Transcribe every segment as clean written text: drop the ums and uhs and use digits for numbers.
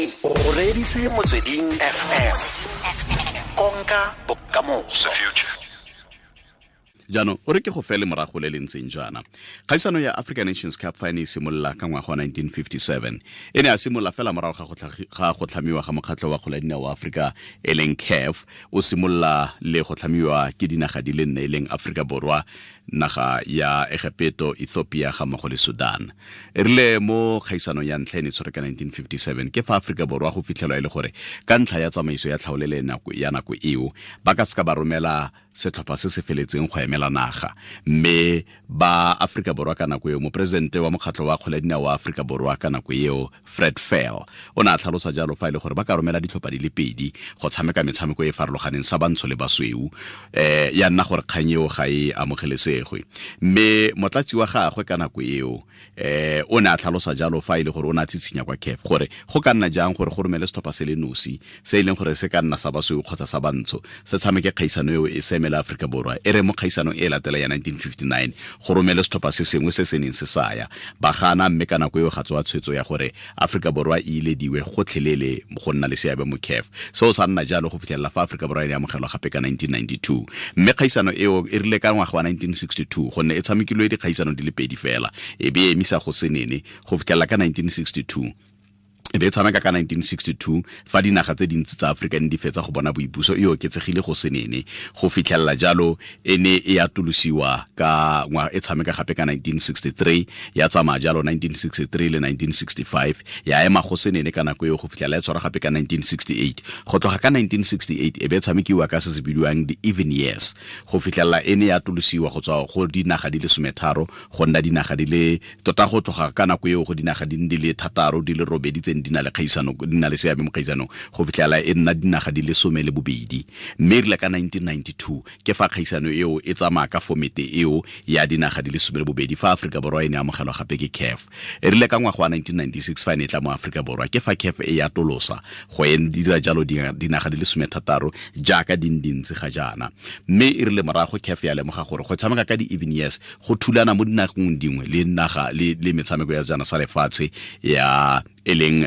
O reditse Motsweding FM. Konka bokamoso. Jaanong o re ke go fele morago le le ntseng jaana. Kgaisano ya African Nations Cup fa e ne e simolola ka ngwaga wa 1957, e ne a simolola fela morago ga go tlhamiwa ga mokgatlho wa kgwele ya dinao wa Aforika e leng CAF. O simolola le go tlhamiwa ke dinaga di le nne, e leng Aforika Borwa, naga ya Egepeto, Ethiopia ga mmogo le Sudan. E rile mo kgaisanong ya ntlha e ne tshwere ka 1957, ke fa Aforika Borwa go fitlhelwa e le gore ka ntlha ya tsamaiso ya tlhaolele ya nako eo, ba ka seka ba romela setlhopha se se feletseng go emela naga. Mme ba Aforika Borwa ka nako eo, moporesidente wa mokgatlho wa kgwele ya dinao wa Aforika Borwa ka nako eo, Fred Fell, o ne a tlhalosa jalo fa e le gore ba ka romela ditlhopha di le pedi go tshameka metshameko e e farologaneng sa bantsho le basweu. Ya nna gore kgang eo ga e amogelesegwe. Mme motlatsi wa gagwe ka nako eo, o ne a tlhalosa jalo fa e le gore o ne a tshitshinya kwa CAF gore go ka nna jang gore go romele setlhopha se le nosi se e leng gore se ka nna sa basweu kgotsa sa bantsho se tshameke kgaisano eo e se emele Aforika Borwa. E re mo kgaisanong e latela ya 1959 go romele setlhopha se sengwe se se neng se saya ba gana, mme ka nako eo ga tsoa tshwetso ya gore Aforika Borwa e ilediwe gotlhelele go nna le seabe mo CAF. Seo sa nna jalo go fitlhelela fa Aforika Borwa e ne amogelwa gape ka 1992. Mme kgaisano eo e rile ka ngwaga wa 1962, gonne e tshamekilwe dikgaisano di le pedi fela, e be e emisa go senene go fitlhelela ka 1962. E be e tshameka ka 1962 fa dinaga tse dintsi tsa Aforika ne di fetsa go bona boipuso, e oketsegile go senene go fitlhelela jalo e ne e atolosiwa ka ngwa, e tshameka gape ka 1963, ya tsamaya jalo 1963 le 1965, ya ema go senene ka nako eo go fitlhelela e tshwara gape ka 1968. Go tloga ka 1968 e be e tshamekiwa ka se se bidiwang the even years go fitlhelela e ne ya atolosiwa go tswa go dinaga di le 13 go nna dinaga di le tota, go tloga ka nako eo go dinaga di le 6 di le 8 tse di na le kgaisano, di na le seabe mo kgaisanong, go fitlhela e nna dinaga di le 12. Mme e rile ka 1992 ke fa kgaisano eo e tsamaya ka fomete eo ya dinaga di le 12, fa Aforika Borwa e ne amogelwa gape ke CAF. E rile ka ngwaga wa 1996 fa e ne e tla mo Aforika Borwa, ke fa CAF e atolosa go e dira jalo dinaga di le 16 jaaka di dintsi ga jaana. Mme e rile morago CAF ya lemoga gore go tshameka ka di-even years go thulana mo dinageng dingwe le naga le metshameko ya sejana sa lefatshe ya e leng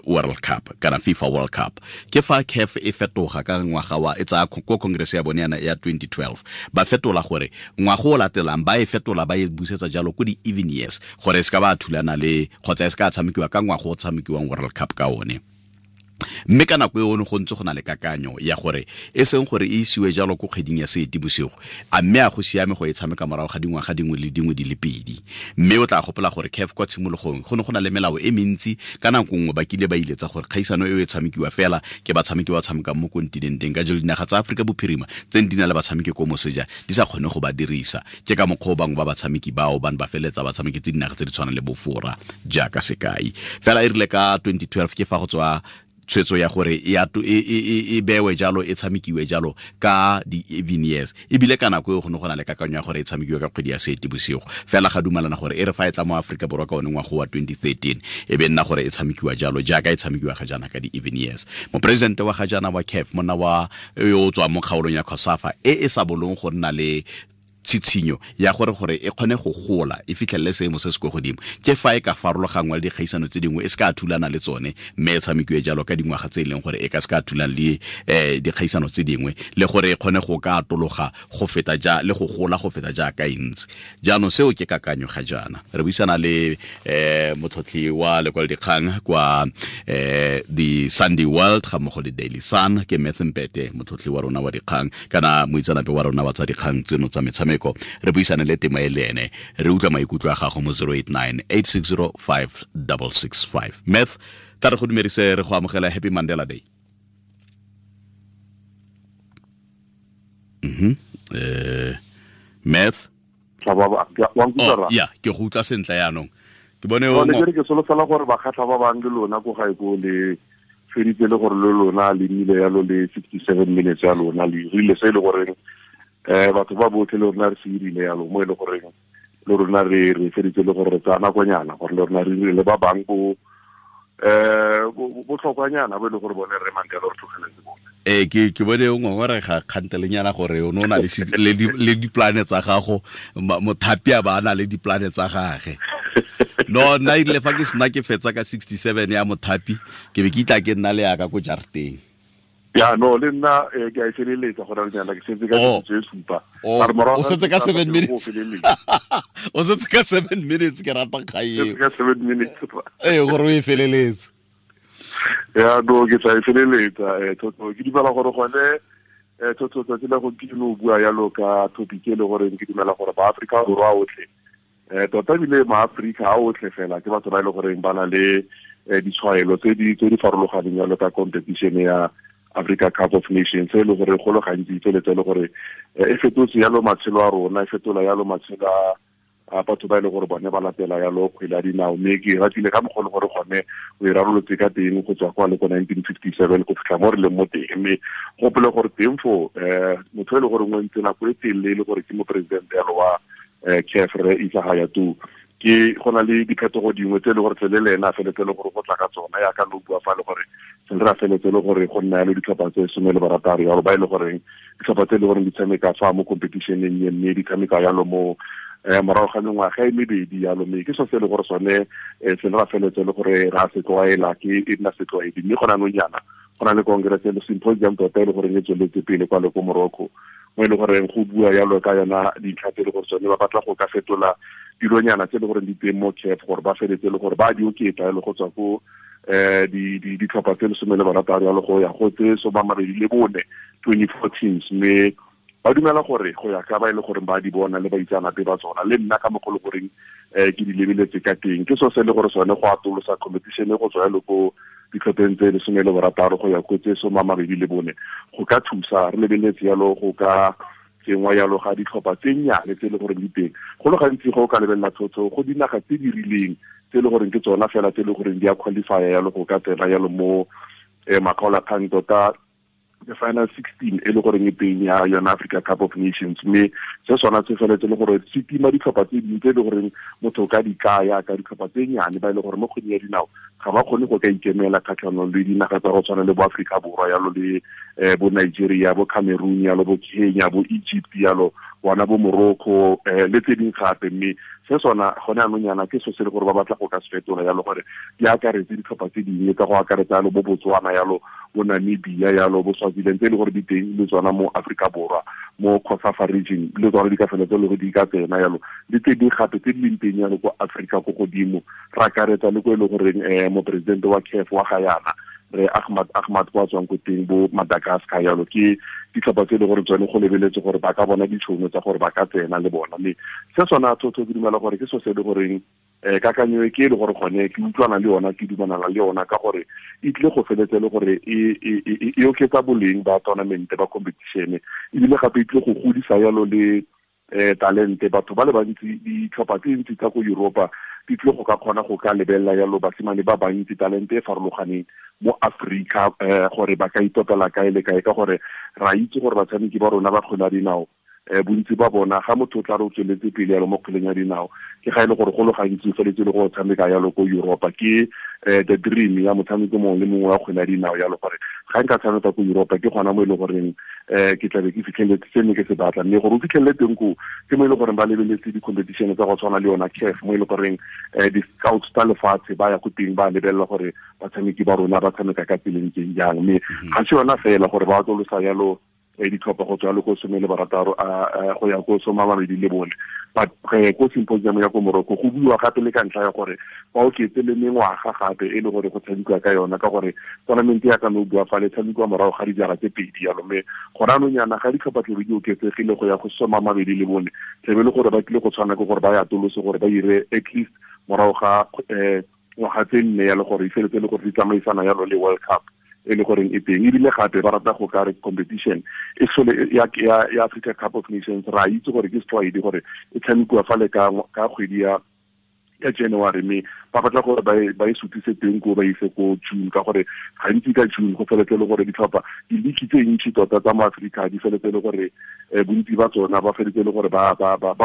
World Cup kana FIFA World Cup. Ke fa CAF e fetoga ka ngwaga wa e tsaya ko congress ya bone ya 2012, ba fetola gore ngwaga o latelang ba e fetola ba e busetsa jalo ko di-even years gore e se ka ba thulana le kgotsa e se ka tshamekiwa ka ngwaga o tshamekiwang World Cup ka one. Mme ka nako eo go ntse go na le kakanyo ya gore e seng gore e isiwe jalo ko kgweding ya Seetebosigo, a mme a go siame go e tshameka morago ga dingwaga dingwe le dingwe di le pedi. Mme o tla gopola gore CAF kwa tshimologong go ne go na le melao e mentsi, ka nako nngwe ba kile ba iletsa gore kgaisano eo e tshamekiwa fela ke batshameki ba tshamekang mo kontinenteng, ka jalo dinaga tsa Aforika Bophirima tse di na le batshameki ko moseja di sa kgone go ba dirisa. Ke ka mokgwa o bangwe ba batshameki bao ba ne ba feleletsa ba tshameketse dinaga tse di tshwanang le Bofora jaaka sekai. Fela e rile ka 2012 ke fa go tswa tshwetso ya gore e bewe jalo, e tshamekiwe jalo ka di-even years. Ebile ka nako eo go ne go na le kakanyo ya gore e tshamekiwe ka kgwedi ya Seetebosigo, fela ga dumalana gore e re fa e tla mo Aforika Borwa ka one ngwaga wa 2013 e be nna gore e tshamekiwa jalo jaaka e tshamekiwa ga jaana ka di-even years. Moporesidente wa ga jaana wa CAF, monna wa yo o tswang mo kgaolong ya COSAFA e e sa bolong go nna le tshitshinyo ya gore e kgone go gola e fitlhelele seemo se se kwa godimo, ke fa e ka farologangwa le dikgaisano tse dingwe e se ka thulana le tsone, mme e tshamekiwe jalo ka dingwaga tse e leng gore e ka se ka thulana le dikgaisano tse dingwe, le gore e kgone go ka atologa go feta ja le go gola go feta jaaka e ntse. Jaanong seo ke kakanyo ga jaana. Re buisana le motlhotlhi wa lekwalodikgang kwa The Sunday World ga mmogo le Daily Sun, ke Math Mpete, motlhotlhi wa rona wa dikgang kana moitseanape wa rona wa tsa dikgang tseno tsa metshameko. Re buisane le tema e le ene, re utlwa maikutlo a gago mo 089 860 5665. Math, tla re go dumedise, re go amogela. Happy Mandela Day. Math, ya ke go utlwa sentle yaanong. Ke bone o ke solofela gore bakgatlha ba bang le lona ko gae ko le feditse le gore le lona le nnile yalo le 67 minutes ya lona le rile se e le goreng batho ba botlhe le rona re se irile yalo mo e le goreng le rona re feditse le gore re tsaya nakonyana gore le rona re rile le ba bang bo botlhokwanyana bo e le gore bone re Mandela re tlogeletse bone. Ke bone o ngongorega kgantelenyana gore o ne o na le diplane tsa gago, mothapi a ba a na le diplane tsa gage. No, nna erile fa ke sena ke fetsa ka 67 ya mothapi, ke be ke itla ke nna le yaka ko jarateng. Ya, no, le nna ke a e feleletsa go reng yana, ke setse ka tse supa. O setse ka 7 minutes. O setse ka 7 minutes, ke rata kgae. Ka 7 minutes. Ee, gore o e feleletse. Ya, no, ke tla e feleletsa. Thotho, ke dumela gore gone thotho tsatsi la gompieno o bua yalo ka topic e le gore ke dumela gore ba Afrika Borwa otlhe, tota ebile maAforika a otlhe fela ke batho ba e le goreng ba na le ditshwaelo tse di farologaneng yalo ka competition ya Africa Cup of Nations, e le gore go le gantsi tsweletse le gore e fetotse yalo matshelo a rona, e fetola yalo matshelo a batho ba e le gore bone ba latela yalo kgwele ya dinao. Mme ke ratile ka mokgwa le gore gone o e rarolotse ka teng go tswa kwa le ko 1957 go fitlha mo re leng mo teng. Mme gopole gore teng fo motho e le gore o ntse nako e telele e le gore ke moporesidente yalo wa CAF, re Issa Hayatou, ke go na le diphetogo dingwe tse e le gore tlele le ena a feletse le gore go tla ka tsona, yaka lo bua fa le gore se re a feletse le gore go nna yalo ditlhopha tse 16 yalo, ba e le goreng ditlhopha tse e le goreng di tshameka fa mo competition-eng e, mme di tshameka yalo mo morago ga mengwaga e mebedi yalo. Mme ke so se e le gore sone se re a feletse le gore ra se tlwaela, ke e nna setlwaedi. Mme gona anong jaana go na le congress le symposium tota e le goreng e tsweletse pele kwa le ko Morocco, mo e le goreng go bua yalo ka yona dintlha tse e le gore tsone ba batla go ka fetola dilonyana tse e le goreng di teng mo CAF, gore ba feletse le gore ba di oketsa le go tswa ko ditlhopha tse 16 yalo go ya go tse 24, 24 teams. Mme ba dumela gore go ya ka ba e le goreng ba di bona le baitseanape ba tsona, le nna ka mokgwa le goreng ke di lebeletse ka teng, ke so se le gore sone go atolosa competition go tswa yalo ko ditlhopheng tse 16 go ya ko tse 24 go ka thusa. Re lebeletse yalo go ka tsengwa yalo ga ditlhopha tse nnyane tse e le goreng di teng. Go le gantsi go ka lebelela thotho go dinaga tse di rileng tse e le goreng ke tsona fela tse e le goreng di a qualify yalo go ka tsena yalo mo makgaolakgang tota the final 16 e le goreng e teng ya yona Africa Cup of Nations. Mme se sona se feletse le gore se tima ditlhopha tse dingwe tse e le goreng motho o ka di kaya ka ditlhopha tse nnyane ba e le gore mo kgweding ya dinao ga ba kgone go ka ikemela kgatlhanong le dinaga tsa go tshwana le bo Afrika Borwa yalo le bo Nigeria, bo Cameroon yalo, bo Kenya, bo Egypt yalo, bona bo Morocco le tse dingwe gape. Mme se sona gone anong yana ke so se le gore ba batla go ka se fetola yalo gore di akaretse ditlhopha tse dingwe ka go akaretsa yalo bo Botswana yalo, bo Namibia yalo, bo Swaziland tse e le gore di teng le tsona mo Afrika Borwa, mo COSAFA region le tsona di ka feletse le gore di ka tsena yalo, le tse dingwe gape tse di leng teng yalo ko Afrika ko godimo. Re akaretsa le ko e le goreng moporesidente wa CAF wa ga yana re Ahmad kwa tswang ko teng bo Madagascar yalo, ke ditlhopha tse e le gore tsone go lebeletse gore ba ka bona ditšhono tsa gore ba ka tsena le bona. Mme se sona thotho ke dumela gore ke so se e le goreng kakanyo e ke e le gore gone ke utlwana le yona, ke dumelana le yona, ka gore e tlile go feletse le gore e oketsa boleng ba tournament ba competition, ebile gape e tlile go godisa yalo le talente. Batho ba le bantsi, ditlhopha tse ntsi tsa ko Europa di tlile go ka kgona go ka lebelela yalo basimane ba bantsi talente e farologaneng mo Afrika, gore ba ka itopela kae le kae, ka gore ra itse gore batshameki ba rona ba kgwele ya dinao bontsi ba bona ga motho o tla re o tsweletse pele yalo mo kgweleng ya dinao, ke ga e le gore go le gantsi o feletse le go tshameka yalo ko Europa. Ke the dream ya motshameko mongwe le mongwe wa kgwele ya dinao yalo, gore ga nka tshameka ko Europa ke gona mo e le goreng ke tlabe ke fitlheletse se ne ke se batla. Mme gore o fitlhelele teng koo ke mo e le goreng ba lebeletse di-competition tsa go tshwana le yona CAF, mo e le goreng di-scouts tsa lefatshe ba ya ko teng ba lebelela gore batshameki ba rona ba tshameka ka tseleng teng jang. Mme ga se yona fela gore ba atolosa yalo ditlhopha go tswa le ko 16 go ya ko 24, but ko symposium ya ko Morocco go buiwa gape le ka ntlha ya gore ba oketse le mengwaga gape e le gore go tshamekiwa ka yona, ka gore tournament ya ka no bua fa le tshamekiwa morago ga dijara tse pedi yalo. Mme gona anong yana ga ditlhopha tlebe di oketsegile go ya go 24, tlebe le gore ba tlile go tshwana ke gore ba ya atolose gore ba ire at least morago ga ngwaga tse nne yalo, gore e feletse le gore di tsamaisana yalo le World Cup e le goreng e teng. Ebile gape ba rata go ka re competition e sole ya Africa Cup of Nations, ra itse gore ke setlwaedi gore e tshamekiwa fa le ka kgwedi ya January, mme Ba batla gore ba e sutise teng ko ba ise ko June, ka gore gantsi ka June go feletse le gore ditlhopha di-league tse ntši tota tsa mo Aforika di feletse le gore bontsi ba tsona ba feletse le gore ba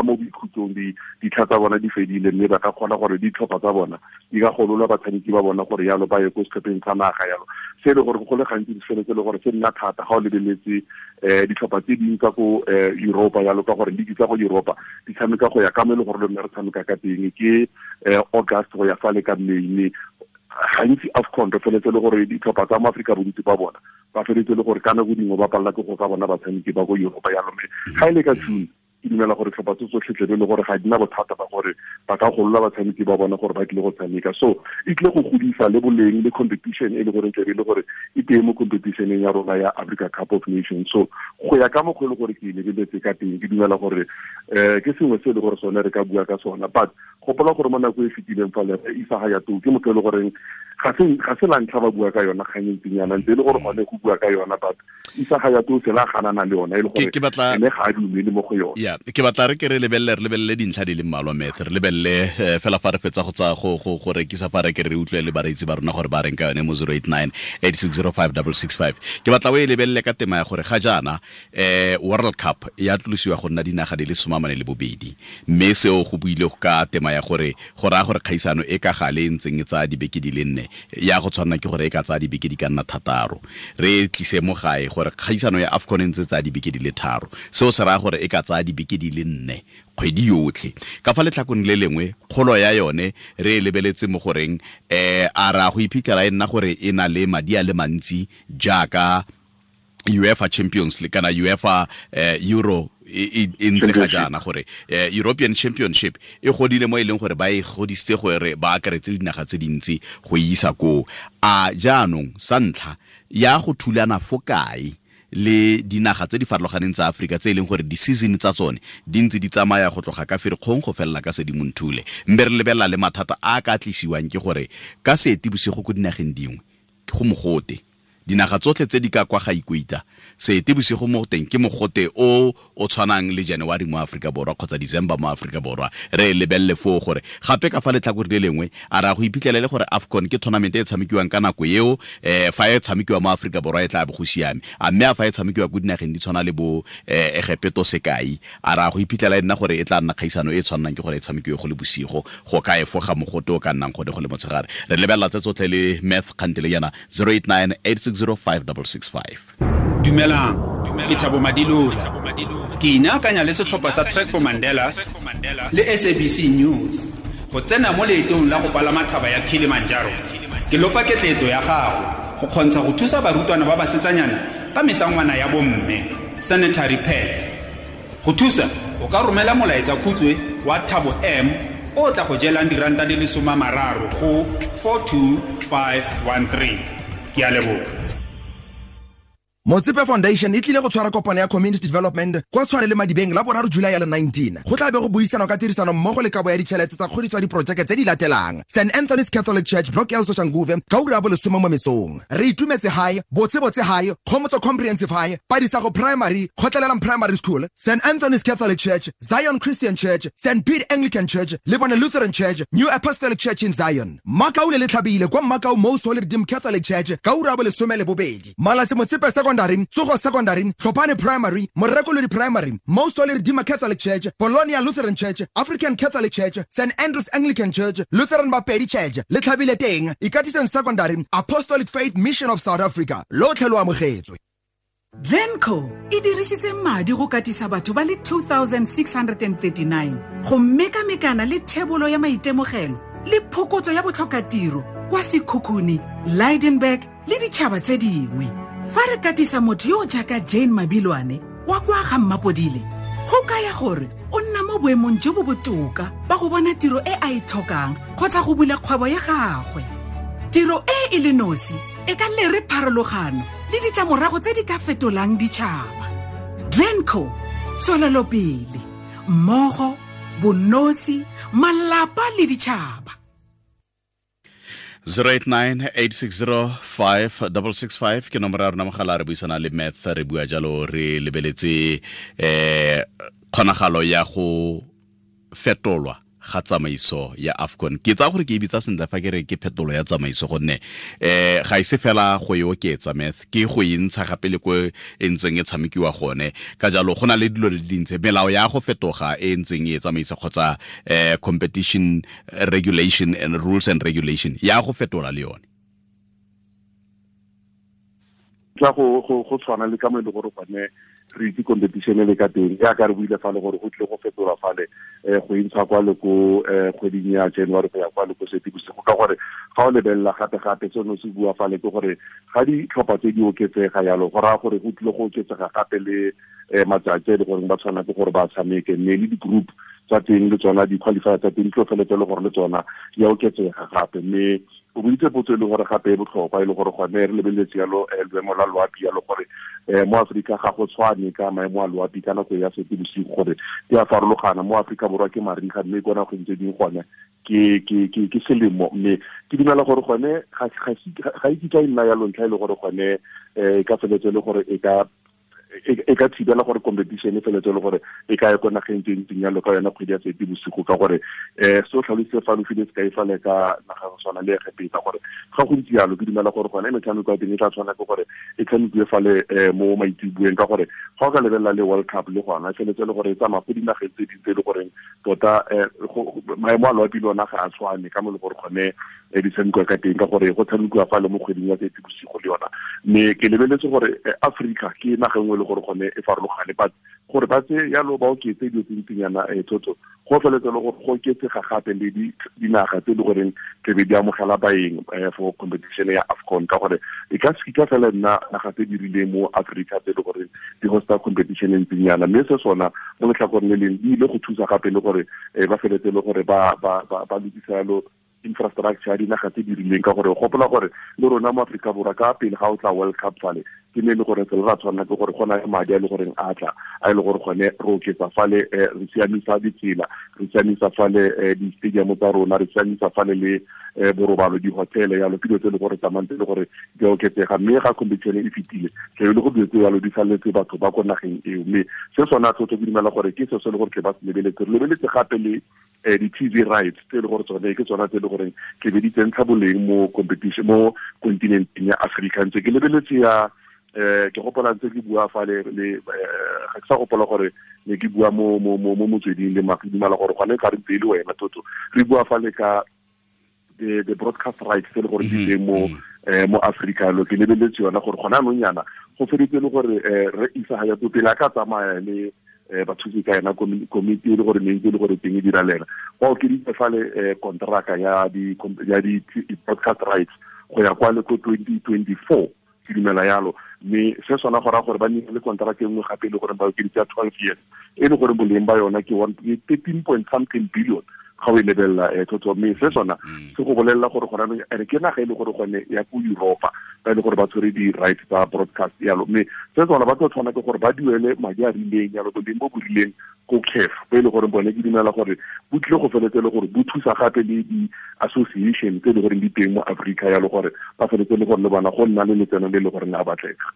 mo boikhutsong, ditlha tsa bona di fedile, mme ba ka kgona gore ditlhopha tsa bona di ka golola batshameki ba bona gore yalo ba ye ko setlhopheng sa naga yalo. Se e le gore go le gantsi di feletse le gore se nna thata ga o lebeletse ditlhopha tse dingwe tsa ko Europa yalo, ka gore league tsa go Europa di tshameka go ya ka mo e le gore le nna re tshameka ka teng ke August go ya fale ka May. Mme gantsi AFCON re feletse le gore ditlhopha tsa mo Aforika bontsi ba bona ba feletse le gore ka nako dingwe ba palela ke go ka bona batshameki ba ko Europa yalo. Mme ga e le ka June ke dumela gore tlhopha tse tsotlhe tlebe le gore ga di na bothata ba gore ba ka golola batshameki ba bona gore ba tlile go tshameka. So e tlile go godisa le boleng le competition e le gore tlebe le gore e teng mo competitioneng ya rona ya Africa Cup of Nations. So go ya ka mokgwa e le gore ke e lebeletse ka teng, ke dumela gore ke sengwe se e le gore sone re ka bua ka sona. But gopola gore mo nako e fetileng fa le Isa Hayatou ke motho e le goreng ga se la ntlha ba bua ka yona kgang e ntseng yana, ntse e le gore gone go bua ka yona, but Isa Hayatou se la ganana le yona e le gore ene ga a dumele mo go yone. Ya, ke batla re ke re lebelele dintlha di le mmalwa, Meth. Re lebelele fela fa re fetsa go tsa go rekisa fa re ke re utlwe le bareetsi ba rona gore ba reng ka yone mo 089 8605 665. Ke batla o e lebelele ka tema ya gore ga jaana World Cup ya tlosiwa go nna dinaga di le 42, mme seo go buile ka tema ya gore go raya gore kgaisano e ka gale e ntseng e tsaya dibeke di le 4 ya go tshwanna ke gore e ka tsaya dibeke di ka nna 6. Re tlise mo gae gore kgaisano ya AFCON e ntse tsaya dibeke di le 3, seo se raya gore e ka tsaya dibeke di le 4 kgwedi yotlhe. Ka fa letlhakong le lengwe kgolo ya yone re e lebeletse mo goreng a ra go iphitlhela e nna gore e na le madi a le mantsi jaaka UEFA Champions League kana UEFA Euro e ntse ga jaana, gore European Championship e godile mo e leng gore ba e godisitse gore ba akaretse dinaga tse dintsi go isa koo. A jaanong sa ntlha ya go thulana fo kae le dinaga tse di farologaneng tsa Aforika tse e leng gore di-season tsa tsone di ntse di tsamaya go tloga ka Ferikgong go felela ka Sedimonthole, mme re lebelela le mathata a ka tlisiwang ke gore ka Seetebosigo ko dinageng dingwe go mogote. Dinaga tsotlhe tse di ka kwa ga Ikuita, Seetebosigo mo teng ke mogote o o tshwanang le January mo Aforika Borwa kgotsa December mo Aforika Borwa. Re lebelele foo gore gape ka fa letlhakore le lengwe a ra go iphitlhelele gore AFCON ke tournament e tshamekiwang ka nako eo, fa e tshamekiwa mo Aforika Borwa e tla bo go siame, a mme a fa e tshamekiwa ko dinageng di tshwana le bo Egepeto sekai, a ra go iphitlhela e nna gore e tla nna kgaisano e tshwanang ke gore e tshamekiwe go le bosigo go ka efoga mogote o ka nnang gone go le motshegare. Re lebelela tse tsotlhe le Math kgantele yana 089 8605 665. Dumelang, ke Thabo Madilola. Ke inaakanya le setlhopha sa Trek for Mandela le SABC News go tsena mo leetong la go palama thaba ya Kilimanjaro. Ke lopa ketleetso ya gago go kgontsha go thusa barutwana ba basetsanyana ka mesangwana ya bomme, sanitary pads. Go thusa, o ka romela molaetsa khutswe wa Thabo M o tla go jelang diranta di le 30 go 42513. Ke a leboga. Motsepe Foundation e tlile go tshwara kopano ya community development kwa Tshwane le Madibeng la 3 July ya le 19. Go tla be go buisanwa ka tirisano mmogo le kabo ya ditšhelete tsa kgodiso ya diprojeke tse di latelang: St Anthony's Catholic Church, Block L Soshanguve, ka ura ya bolesome mo mesong. Re itumetse High, Botsebotse High, Kgomotso Comprehensive High, Padisago Primary, Kgotlelelang Primary School, St Anthony's Catholic Church, Zion Christian Church, St Pete Anglican Church, Lebone Lutheran Church, New Apostolic Church in Zion. Makau le Letlhabile kwa Makau Most Holy Redeemed Catholic Church ka ura ya bolesome le bobedi. Malatsi Motsepe Secondary, Tsogo Secondary, Tlhopane Primary, Morekolodi Primary, Most Holy Redeemer Catholic Church, Polonia Lutheran Church, African Catholic Church, St Andrews Anglican Church, Lutheran Bapedi Church, Letlhabile teng, Ikatiseng Secondary, Apostolic Faith Mission of South Africa. Lotlhe lo amogetswe. Glencoe e dirisitse madi go katisa batho ba le 2639 go mekamekana le thebolo ya maitemogelo le phokotso ya botlhokatiro kwa Sekhukhune, Lydenburg le ditšhaba tse dingwe. Fa re katisa motho yo jaaka Jane Mabilwane wa kwa ga Mmapodile, go kaya gore o nna mo boemong jo bo botoka ba go bona tiro e a e tlhokang kgotsa go bula kgwebo ya gagwe. Tiro e e le nosi e ka lere pharologano le ditlamorago tse di ka fetolang ditšhaba. Glencoe, tswelelopele mmogo, bonosi, malapa le ditšhaba. 089 860 5665 ke nomoro ya rona mogala. Re buisana le Math, re bua jalo re lebeletse kgonagalo ya go fetolwa ga tsamaiso ya AFCON. Ke tsa gore ke e bitsa sentle fa ke re ke phetolo ya tsamaiso, gonne ga ise fela go e oketsa Math, ke go e ntsha gape le ko e ntseng e tshamekiwa gone. Ka jalo go na le dilo di dintse, melao ya go fetoga e ntseng e tsamaisa kgotsa competition regulation and rules and regulation ya go fetola le yone. Tla go tshwana le ka mo e le gore gone re itse competition le ka teng, ya ka re buile fa le gore go tle go fetola fale go intsha kwa le ko kgweding ya January go ya kwa le ko Seetebosigo, ka gore ga o lebelela gape seno se bua fale ke gore ga ditlhopha tse di oketsega yalo, go raya gore go tlile go oketsega gape le matsatsi a e le goreng ba tshwana ke gore ba tshameke, mme le di-group tsa teng le tsona di-qualifier tsa teng di tlo feletse le gore le tsona di a oketsega gape. Mme o boditse potso e le gore gape e botlhokwa, e le gore gone re lebeletse yalo loemo la loapi yalo, gore mo Aforika ga go tshwane ka maemo a loapi ka nako ya Seetebosigo, gore di a farologana. Mo Aforika Borwa ke mariga, mme ko nageng tse dingwe gone ke selemo. Mme ke dumela gore gone ga e kitla e nna yalo ntlha e le gore gone e ka feletse le gore e ka thibela gore competition e feletse le gore e ka ya ko nageng tse ntseng yalo ka yona kgwedi ya Seetebosigo, ka gore se o tlhalositse fa lo file sekai fale ka naga go tshwana le Egepeta, gore ga go ntse yalo ke dumela gore gone metshameko ya teng e tla tshwana ke gore e tshamekiwe fale mo maitseboeng, ka gore ga o ka lebelela le World Cup le gona e feletse le gore e tsamaya go dinageng tse dingwe tse e le goreng tota maemo a loapi le ona ga a tshwane ka mo le gore gone di tshamekiwa ka teng, ka gore go tshamekiwa fale mo kgweding ya Seetebosigo le yona. Mme ke lebeletse gore Afrika ke naga nngwe le gore gone e farologane, but gore ba tse yalo ba oketse dilo tse ntsinyana thotho go feletse le gore go oketsega gape le dinaga tse e le goreng tlebe di amogela baeng for competition ya AFCON, ka gore e ka se kitla fela nna naga tse di rileng mo Africa tse e le goreng di hosta competition e ntsinyana. Mme se sona mo letlhakoreng le leng di ile go thusa gape le gore ba feletse le gore ba lokisa yalo infrastructure ya dinaga tse di rileng, ka gore gopola gore le rona mo Aforika Borwa ka pele ga o tla World Cup fale ke ne e le gore tsela ra tshwanela ke gore go na le madi a e le goreng a tla a e le gore gone re oketsa fale re siamisa ditsela, re siamisa fale di-stadium tsa rona, re siamisa fale le borobalo, di-hotel yalo, ke dilo tse e le gore tsamayng tse e le gore di a oketsega. Mme ga competition e fetile tlebe le go dilo tse yalo di saletse batho ba ko nageng eo. Mme se sona thotho ke dumela gore ke se se le gore ke ba se lebeletse. Re lebeletse gape le di-TV rights tse e le gore tsone ke tsona tse e le goreng ke be di tsentsha boleng mo competition mo continenteng ya Africa. Ntse ke lebeletse ya ke gopola ntse ke bua fale le ga ke sa gopola gore ne ke bua mo motsweding le ke dumela gore gone ka re ntse e le wena Toto, re bua fale ka the broadcast rights tse e le gore di teng mo mo Africa. Lo ke lebeletse yona gore gona anong yana go feditse le gore re isa ga ya pele a ka tsamaya le bathusi ka yena komiti e le gore ne ntse le gore teng e dira le ena, ba okeditse fale kontraka ya di broadcast rights go ya kwa le ko 2024 ke dumela yalo. Mme se sona go raya gore ba nne le kontraka e nngwe gape e le gore ba okeditse ya 12 years e le gore boleng ba yona ke 13 point something billion ga o e lebelela thotho. Mme se sona se go bolelela gore gona ere ke naga e le gore gone ya ko Europa ba e le gore ba tshwere di-rights tsa broadcast yalo. Mme se sona ba tlo tshwana ke gore ba duele madi a rileng yalo, boleng bo bo rileng ko CAF, bo e le gore bone ke dumela gore bo tlile go feletse le gore bo thusa gape le di-association tse e le goreng di teng mo Africa yalo, gore ba feletse le gore le bona go nna le letseno le le goreng a batlega.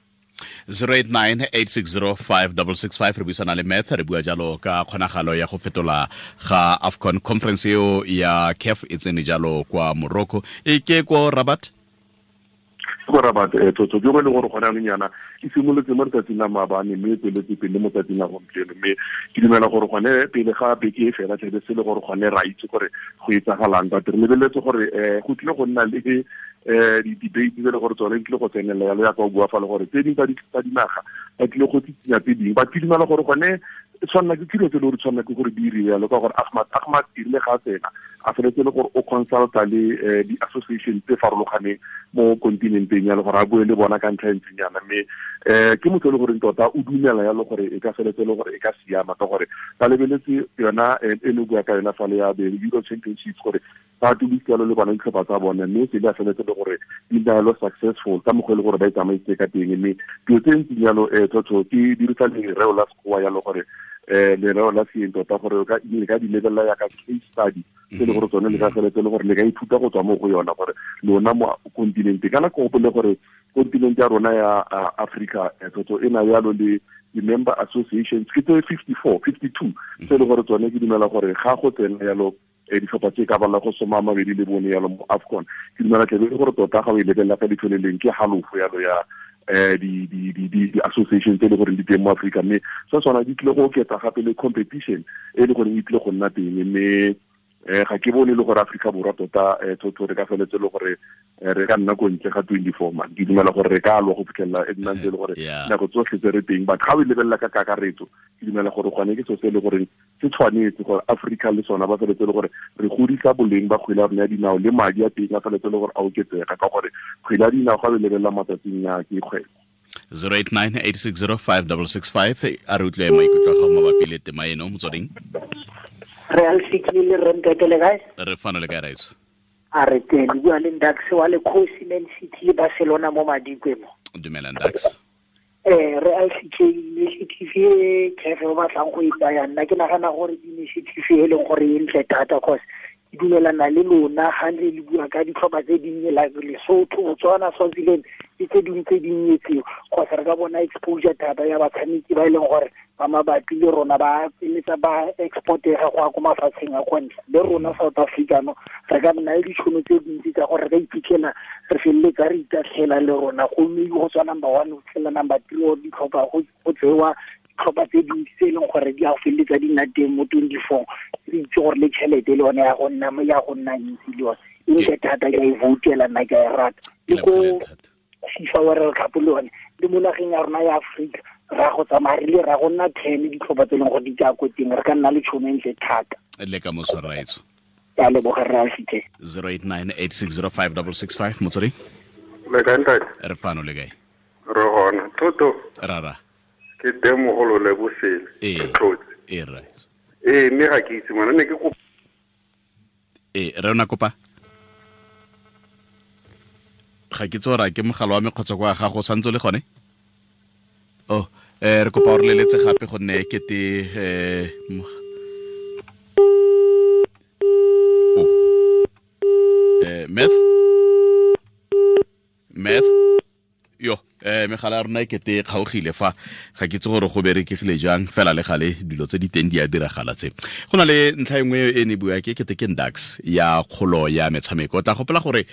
089-860-5665 re buisana le Math, re bua jalo ka kgonagalo ya go fetola ga AFCON conference eo ya CAF e tsene jalo kwa Morocco, e ke ko Rabat. Ko Rabat Toto ke go le gore gone anong yana e simolotse mo letsatsing la maabane mme e tsweletse pele mo tsatsing la gompieno. Mme ke dumela gore gone pele ga beke e fela tlebe se le gore gone ra itse gore go etsagalang, but re lebeletse gore go tlile go nna le di-debate tse le gore tsone di tlile go tsenelela yalo ya ka o bua fa le gore tse dingwe tsa dinaga ba tlile go tsitsinya tse dingwe. Ba dumela gore gone tshwanela ke dilo tse le gore tshwanela ke gore di iriwe yalo, ka gore Ahmad erile ga a tsena a feletse le gore o consulta le di-association tse farologaneng mo continenteng yalo, gore a bue le bona ka ntlha e ntseng yana. Mme ke motho e le goreng tota o dumela yalo gore e ka feletse le gore e ka siama, ka gore ba lebeletse yona e ne bua ka yona fale ya the Euro Championships gore ba tobitse yalo le bona ditlhopha tsa bone, mme se di a feletse le gore di nna yalo successful ka mokgwa e le gore ba e tsamaisitse ka teng. Mme dilo tse ntseng yalo Toto ke dirisa lereo la Sekgowa yalo gore lereo la seeng tota gore le ka di lebelela yaka case study tse le gore tsone le ka feletse le gore le ka ithuta go tswa mo go yona, gore lona mo continente kana ko gopole gore continente ya rona ya Africa Toto e na yalo le di-member associations ke tse 54 52 tse le gore tsone ke dumela gore ga go tsena yalo Ditlhopha tse ka bala go 24 yalo mo AFCON. Ke dumela tle le gore tota ga o e lebelela ka leitlho le leng ke halofo yalo ya di association tse le gore di teng mo Africa, mme se sona di tlile go oketsa gape le competition e le gore e tlile go nna teng, mme ga ke bone le gore Africa Borwa tota thotho re ka feletse le gore re ka nna ko ntle ga 24 man. Ke dumela gore re ka lwa go fitlhelela e nna ntse le gore nako tsotlhe tse re teng, but ga o e lebelela ka kakaretso ke dumela gore gone ke selo se le gore se tshwanetse gore Africa le sona ba feletse le gore re godisa boleng ba kgwele ya rona ya dinao le madi a teng a feletse le gore a oketsega, ka gore kgwele ya dinao ga o e lebelela matsatsing a ke kgwebo. 089 860 5665 a re utlwe maikutlo a gago mabapi le tema eno. Motsweding. Re alfikile re ntatele kae? Re fano le kae, raetso? A re teng, le bua le Ndax wa le Khosi Man City le Barcelona mo Madikwe mo. Dumela Ndax. Re alfikile initiative e CAF o batlang go e tsaya, nna ke nagana gore initiative e leng gore e ntle thata, cause ke dumelana le lona ga le le bua ka ditlhopha tse dinnye like Lesotho, Botswana, Swaziland le tse dingwe tse dinnye tseo, cause re ka bona exposure thata ya batshameki ba e leng gore ba mabapi le rona ba feletsa ba exportega go ya ko mafatsheng a kwa ntle. Le rona South Africa no re ka nna le ditšhono tse dintsi tsa gore re ka iphitlhela re feleletsa re itatlhela le rona, gomme go tswa number 1 go fitlhela number 3 or ditlhopha go tsewa ditlhopha tse dintsi tse e leng gore di a go feleletsa di nna teng mo 24. Re itse gore le tšhelete le yone ya go nna ntsi le yone e ntle thata, ke a e voutela nna, ke a e rata. Le ko FIFA World Cup le yone le mo nageng ya rona ya Afrika ra go tsamaya re le ra go nna 10 ditlhopha tse e leng gore di tsaya ko teng, re ka nna le tšhono e ntle thata. Le ka moso raetso. Ke a leboga rra Alfike. 089 860 5665 Motsweding. Le kae ntate? Re fano le kae? Re gona. Toto. Rara. Ke teng mogolo le bosele. Ee. Tlotse. Ee, raetso. Ee, mme ga ke itse ngwana ne ke kopa. Ee, re ona kopa. Ga ke tsora ke mogala wa me kgotsa kwa gago santse le gone? Oh, re kopa o re leletse gape gonne kete Meth yo megala ya rona e kete e kgaogile fa, ga ke itse gore go berekegile jang, fela le gale dilo tse di teng di a diragala tse. Go na le ntlha e nngwe e ne bua ke kete ke Ndax ya kgolo ya metshameko. O tla gopola gore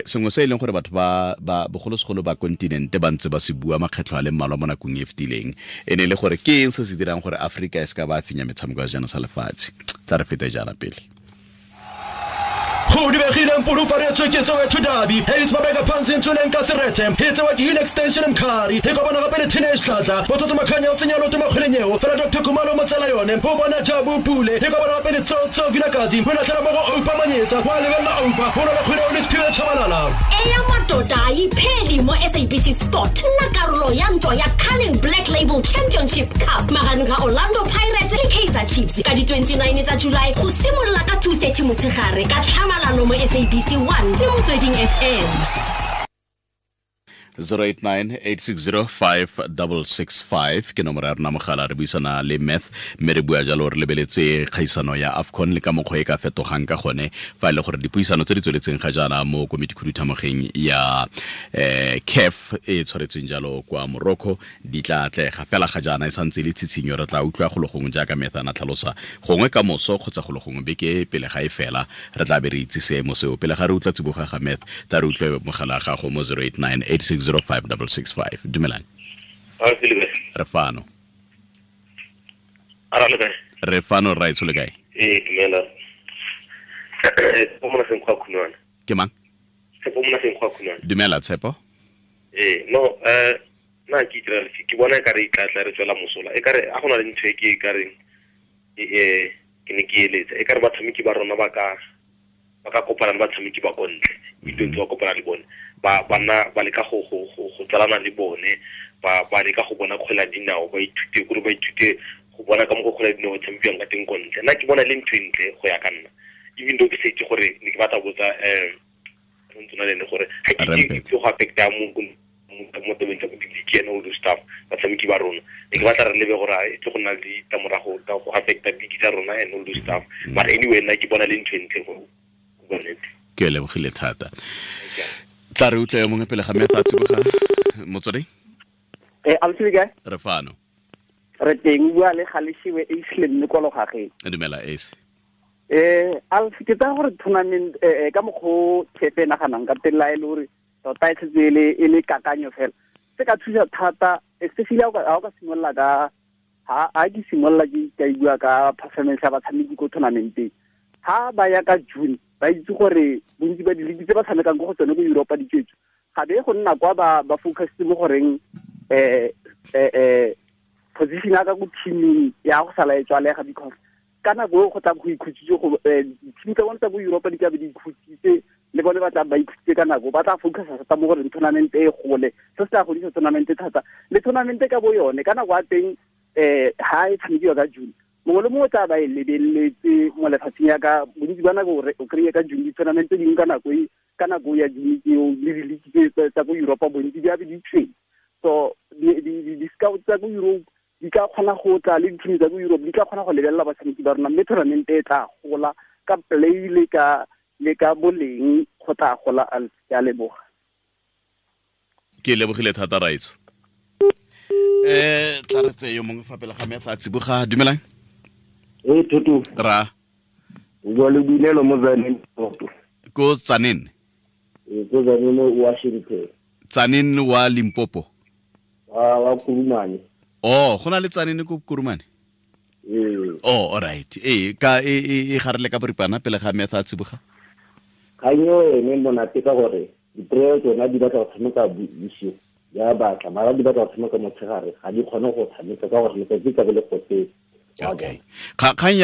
sengwe se e leng gore batho ba bogolosegolo ba kontinente ba ntse ba se bua makgetlho a le mmalwa mo nakong e fetileng, e ne e le gore ke eng se se dirang gore Afrika e se ka ba fenya metshameko ya sejana sa lefatshe. Tla re fete jaana pele. Go dibegile mpulufaretswe ke Soweto Derby. Heights ba beka phansi ntshweleng ka serete. E tsewa ke Hill Extension Mkhari. E kopana gape le Teenage Tlatla. Botsotso Makhanya o tsenya loto makgweleng eo. Fela Dr. Khumalo mo tsela yone. O bona Jabu Pule. E kopana gape le Tsotso Vilakazi. O latlhela mo go Oupa Manyetsa. Wa lebelela Oupa. O lwela kgwele o le Siphiwe Tshabalala. Eya madoda ayipheli mo SABC Sport. Nna karolo ya ntwa ya Carling Black Label Championship Cup magareng ga Orlando Pirates le Kaizer Chiefs ka di 29 tsa July go simolola ka 2:30 motshegare ka tlhamalalo mo SABC 1 le Motsweding FM. 089 860 5665 ke nomoro ya rona mogala. Re buisana le Meth mme re bua jalo re lebeletse kgaisano ya AFCON le ka mokgwa e ka fetogang ka gone fa e le gore dipuisano tse di tsweletseng ga jaana mo komiti khuduthamogeng ya CAF e tshwaretsweng jalo kwa Morocco di tla atlega. Fela ga jaana e santse le tshitshinyo, re tla utlwa go le gongwe jaaka Meth a na tlhalosa gongwe ka moso kgotsa go le gongwe beke pele ga e fela re tla be re itse seemo seo. Pele ga re utlwa tsiboga ga Meth, tla re utlwe mogala gago mo 089 860 5665. Dumelang. Re fano. Re fano raetsho le kae? Ee, dumela. Ke mang? Tshepo Monaseng kwa Khunwana. Dumela Tshepo. Ee, no, nna ke itirela ke bona e kare e tla re tswela mosola. E kare a gona le ntho e ke e kareng ke ne ke eletsa. E kare batshameki ba rona ba ka kopana le batshameki ba kontle. Itse ba kopana le bone. Ba bana ba leka go tsalana le bone, ba leka go bona kgwele ya dinao, ba ithute gore ba ithute go bona ka mokgwa kgwele ya dinao tshamekiwang ka teng ko ntle. Nna ke bona le ntho e ntle go ya ka nna. Even though ke sa itse gore ne ke batla botsa ntsona le ene gore ga ke itse go affecta mo tabeng tsa bo di-league and all those stuff, batshameki ba rona. Ne ke batla re lebe gore e tle go nna le ditlamorago tsa go affecta league tsa rona and all those stuff. But anyway, nna ke bona le ntho e ntle go bua nnete. Ke lebogile thata. Tla re utlwe yo mongwe pele ga Meth a tsiboga. Motsweding. Ausi le kae? Re fano. Re teng, bua le Galeshiwe Ace le mme kwa Logageng. Dumela Ace. Alf ke tsa gore tournament ka mokgo kepe naganang ka teng la e le gore tota e setse e le kakanyo fela se ka thusa thata especially ha o ka simolola ka ha ke simolola ke ka bua ka performance ya batshameki ko tournamenteng ha ba ya ka June ba itse gore bontsi ba diligi tse ba tshamekang ko go tsone ko Europa di tswetswe ga be go nna kwa ba focus mo goreng position ya ka ko teaming ya go sala e tswalega because ka nako e go tla go ikhutsitse go team tsa bona tsa ko Europa di ka be di ikhutsitse le bone ba tla ba ikhutsitse ka nako ba tla focus thata mo gore tournament e gole se se tla godisa tournament thata le tournament ka bo yone ka nako ya teng ha e tshamekiwa ka June mongwe le mongwe tla ba e lebeletse mo lefatsheng ya ka bontsi ba nako o kry-e ka June di-tournament tse dingwe ka nako ya June tseo le di-league tsa ko Europa bontsi di abe di tshweng so di-scout tsa ko Europe di ka kgona go tla le di-team tsa ko Europe di ka kgona go lebelela batshameki ba rona mme tournament e tla gola ka play le ka boleng go tla gola. Ke a leboga. Ke lebogile thata Raitso. Tla re tseye yo mongwe fa pele ga me a tsiboga. Dumelang. Tutu. Ra. O bua le Boinelo mo Tzaneen. Ko Tzaneen? Ko Tzaneen Washington. Tzaneen wa Limpopo. Wa Kurumane. Oh, go na le Tzaneen ko Kurumane? Oh, all right. Ka e garele ka boripana pele ga me a tsiboga. Kganyo ene monate ka gore dipreo tsona di batla go tshameka bosigo ya batla mara di batla go tshameka motshegare ga di kgone go tshameka ka gore letsatsi ka be le gotetse. Okay. Kgang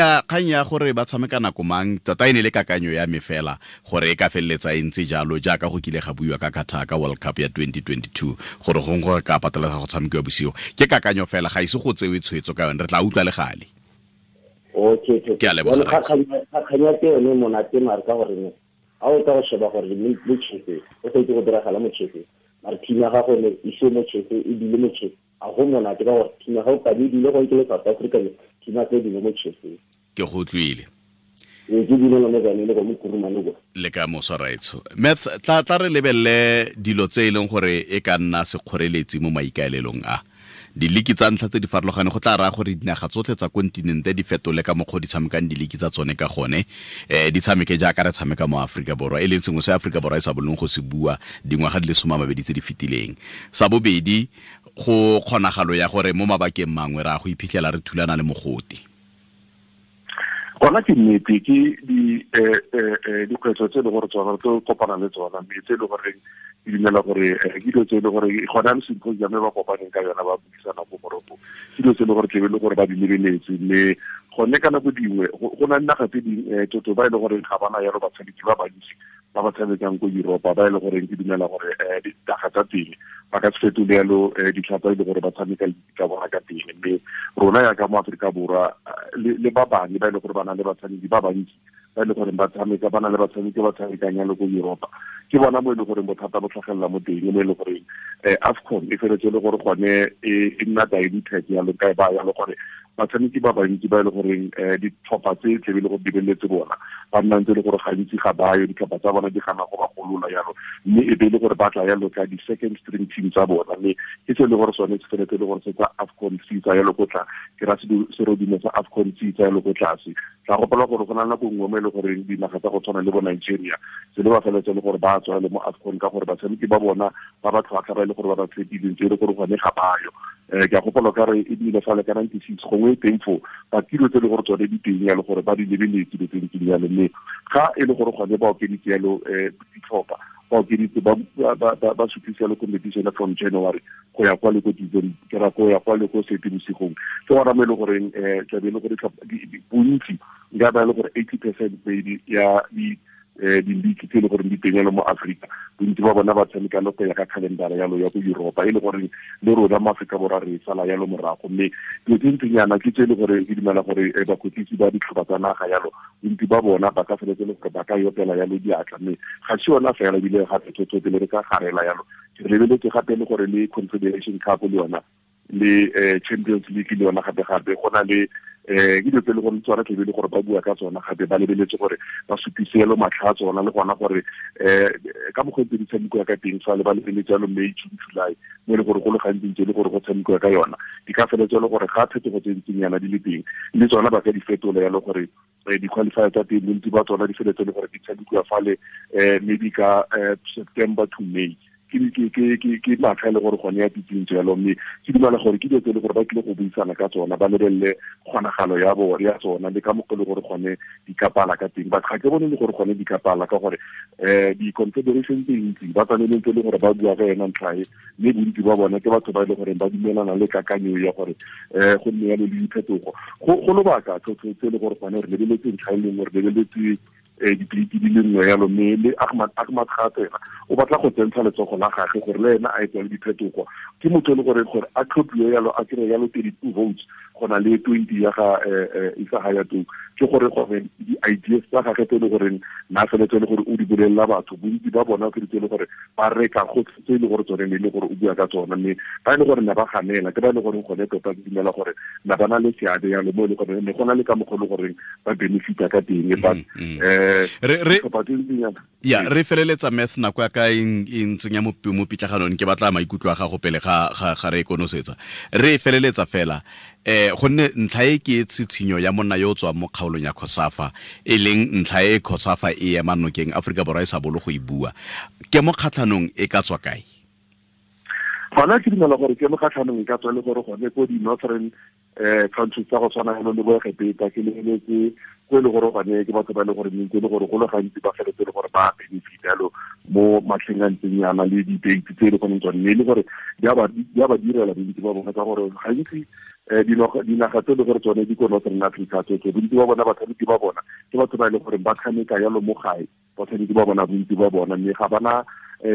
ya gore ba tshameka nako mang tota e ne le kakanyo ya me fela gore e ka feleletsa e ntse jalo jaaka go kile ga buiwa ka Qatar ka World Cup ya 2022 gore gongwe gore ka patelega go tshamekiwa bosigo ke kakanyo fela ga ise go tsewe tshwetso ka yone re tla utlwa le gale. Okay. Ke a leboga. Kgang ya teng yone monate mare ka gore ne ha o tla go sheba gore le chefe o sa itse go diragala mo chefe mare team ya gago ne ise mo chefe e dile mo chefe a go monate ka gore team ya gago ka di dile go ke le South Africa team tse dingwe mo chefe. Ke go utlwile. Ke dile mo Tzaneen go mo Kurumane go. Le ka moso Raitso. Meth tla re lebelle dilo tse e leng gore e ka nna sekgoreletsi mo maikaelelong a diliki tsa ntlha tse di farologaneng go tla raya gore dinaga tsotlhe tsa kontinente di fetole ka mokgwa di tshamekang diliki tsa tsone ka gone di tshameke jaaka re tshameka mo Aforika Borwa e leng sengwe se Aforika Borwa e sa bolong go se bua dingwaga di le 20 tse di fetileng. Sa bobedi go kgonagalo ya gore mo mabakeng mangwe ra go iphitlhela re thulana le mogote. Gona ke nnete ke dikgwetlho tse e le gore tsona re tlo kopana le tsona mme tse e le gore ke dumela gore ke dilo tse e le gore gona le symposium e ba kopaneng ka yona ba buisana ko Morocco ke dilo tse e le gore tlebe le gore ba di lebeletse mme gone ka nako dingwe go na le naga tse dingwe toto ba e le gore ga bana yalo batshameki ba bantsi ba ba tshamekang ko Europa ba e le gore ke dumela gore dinaga tsa teng ba ka se fetole yalo ditlhopha e le gore ba tshameka tsa bona ka teng mme rona yaka mo Aforika Borwa le ba bangwe ba e le gore ba na le batshameki ba bantsi ba e le gore ba tshameka ba na le batshameki ba tshamekang yalo ko Europa ke bona mo e le gore bothata bo tlhagelela mo teng mo e le gore AFCON e feletse le gore gone e nna diluted yalo ka ba yalo gore batshameki ba bantsi ba e le goreng ditlhopha tse tlebe le gore di beletse bona ba nna ntse le gore gantsi ga bayo ditlhopha tsa bona di gana go ba golola yalo mme e be le gore ba tla yalo ka di-second string team tsa bona mme ke se le gore sone se feletse le gore se tsa AFCON se tsa yalo ko tla ke ra serodimo sa AFCON se tsa yalo ko tlase. Tla gopola gore go na nako nngwe mo e le goreng dinaga tsa go tshwana le bo Nigeria se le ba feletse le gore ba tswa le mo AFCON ka gore batshameki ba bona ba ba tlhwatlhwa ba e le gore ba ba tshepileng tse e le gore gone ga bayo. Ke a gopola ka re e bile fale ka 96 gongwe e teng foo ba tiro tse le gore tsone di teng yalo gore ba di lebeletse dilo tse di ntseng yalo mme ga e le gore gone ba okeditse yalo ditlhopha ba okeditse ba sutlisa yalo competition from January go ya kwa le ko December ke ra go ya kwa le ko Seetebosigong ke gona mo e le goreng tlabe e le gore bontsi nka ba e le gore 80% maybe ya di-league tse e le gore di teng yalo mo Afrika bontsi ba bona ba tshameka le go ya ka calendar yalo ya ko Europa e le gore le rona mo Afrika Borwa re sala yalo morago mme dilo tse ntseng yana ke tse e le gore ke dumela gore bakwetlisi ba ditlhopha tsa naga yalo bontsi ba bona ba ka feletse le gore ba ka yopela yalo diatla mme ga se yona fela ebile gape tsotso pele re ka garela yalo re lebeletse gape le gore le Confederation Cup le yona le Champions League le yona gape gape go na le Ke dilo tse e le gore tsona tlebe le gore ba bua ka tsona gape ba lebeletse gore ba supise yalo matlha a tsona le gona gore ka mokgwa tse di tshamekiwa ka teng fa le ba lebeletse yalo May, June, July mo e le gore go le gantsi ntse e le gore go tshamekiwa ka yona di ka feletse le gore ga phetogo tse ntseng yana di le teng le tsona ba ka di fetola yalo gore di-qualifier tsa teng bontsi ba tsona di feletse le gore di tshamekiwa fale maybe ka September to May. Ke matlha e le gore gone ya titsintso yalo, mme ke dumela gore ke dilo tse e le gore ba tlile go buisana ka tsona ba lebelele kgonagalo ya ya tsona le ka mokgwa e le gore gone di ka pala ka teng. But ga ke bone le gore gone di ka pala ka gore di-confederation tse ntsi ba tshwaneleng tse e le gore ba bua ka yona ntlha e, mme bontsi ba bona ke batho ba e le goreng ba dumelana le kakanyo ya gore go nne yalo le diphetogo go lobaka tse e le gore gone re lebeletse ntlha e lengwe, re lebeletse dipliki di le nngwe yalo, mme le Ahmad gape ena o batla go tsentsha letsogo la gagwe gore le ena a etse le diphetogo. Ke motho e le gore gore a tlhophiwe yalo a kry yalo 32 votes go na le 20 ya ga Isa Hayatou, ke gore gore di-ideas tsa gagwe tse e le goreng na feletse le gore o di bolelela batho bontsi ba bona ke tse e le gore ba reka go tse e le gore tsone ne e le gore o bua ka tsona, mme ba e le gore ne ba ganela ke ba e le goreng gone tota ke dumela gore na ba na le seabe yalo mo e le gore ne go na le ka mokgwa e le goreng ba benefita ka teng. But ya re feleletsa Math nako ya ka e ntsenya mo pitlaganong, ke batla maikutlo a gago pele ga re konosetsa. Re feleletsa fela gonne ntlha e ke tshitshinyo ya monna yo o tswang mo kgaolong ya COSAFA, e leng ntlha e COSAFA e ema nokeng Aforika Borwa e sa bolo go e bua, ke mo kgatlhanong e ka tswa kae? Gona ke dumela gore ke mo kgatlhanong e ka tswa le gore gone ko di-northern countries tsa go tshwana le bo Egepeta, ke lebeletse ko e le gore gone ke batho ba e le gore ntse e le gore go le gantsi ba feletse le gore ba benefit yalo mo matlheng a ntseng yana le di-date tse e le goneng tsone, mme e le gore di a ba direla bontsi ba bona ka gore gantsi dinaga tse e le gore tsone di ko Northern Africa tsotlhe bontsi ba bona batshameki ba bona ke batho ba e le gore ba tshameka yalo mo gae, batshameki ba bona bontsi ba bona, mme ga bana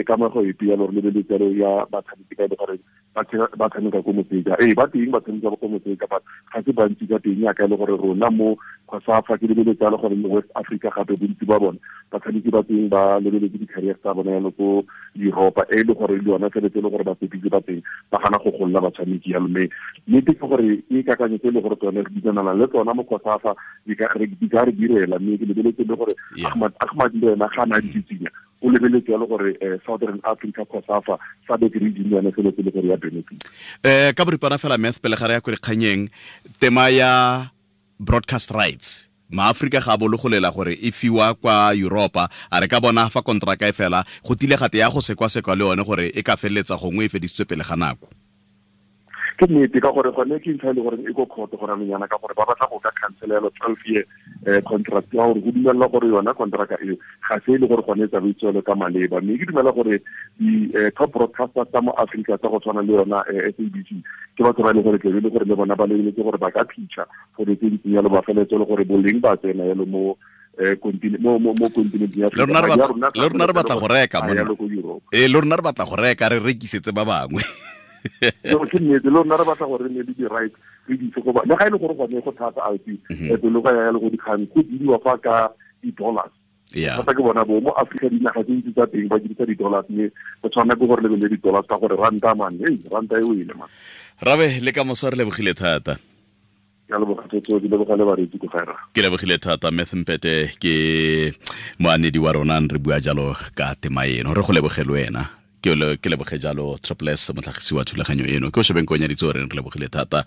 kamego epe yalo re lebeletse yalo ya batshameki ba e le gore ba tshameka ko motseka. Ba teng ba tshameka ko motseka, but ga se bantsi ka teng yaka e le gore rona mo COSAFA ke lebeletse yalo gore mo West Africa gape bontsi ba bona batshameki ba teng ba lebeletse di-career tsa bona yalo ko Europa, e le gore le yona feletse e le gore batsepitse ba teng ba gana go golola batshameki yalo. Mme nnete ke gore ke kakanyo tse e le gore tsone re dumelana le tsona mo COSAFA di ka re direla, mme ke lebeletse le gore Ahmad le ena ga na ditsitsinya o lebeletse yalo gore Southern Africa COSAFA SADC region yone feletse le gore ya benefit. Ka boripana fela Math pele ga re ya ko dikganyeng, tema ya broadcast rights maAforika ga a bologolela gore e fiwa kwa Europa, a re ka bona fa kontraka e fela go tile gate ya go sekwasekwa le yone gore e ka feleletsa gongwe e fedisitswe pele ga nako. Ke nnete ka gore gone ke ntlha e le gore e ko court go ramenyana ka gore ba batla go ka cancel yalo 12 year contract ya gore go dumela gore yona contract eo ga se e le gore gone e tsamaisiwe ka maleba, mme ke dumela gore di top broadcasters tsa mo Africa tsa go tshwana le yona SABC ke batho ba e le gore tlebe le gore le bona ba lebeletse gore ba ka pitcha gore tse di yalo ba feletse le gore boleng ba tsena yalo mo mo continent ya le rona re batla go reka monna, le rona re batla go reka re rekisetse ba bangwe. No, ke nnete le rona re batla gore re nne le di-rights re di itse go ba le ga e le gore gone go thata alpi pelo ka ya le go dikgang go diriwa fa ka di-dollars. Thata ke bona bo mo Africa dinaga tse ntsi tsa teng ba dirisa di-dollars, mme go tshwana ke gore lebelele di-dollars ka gore ranta man, hey ranta e wele man. Rabe le ka moso re lebogile thata. Ke lebogile thata Math Mpete ke moanedi wa rona re bua jalo ka tema eno, re go lebogele wena. Ke leboge jalo Triple S motlhagisi wa thulaganyo eno, ke o shebeng ko nyaditse o reng re lebogile thata.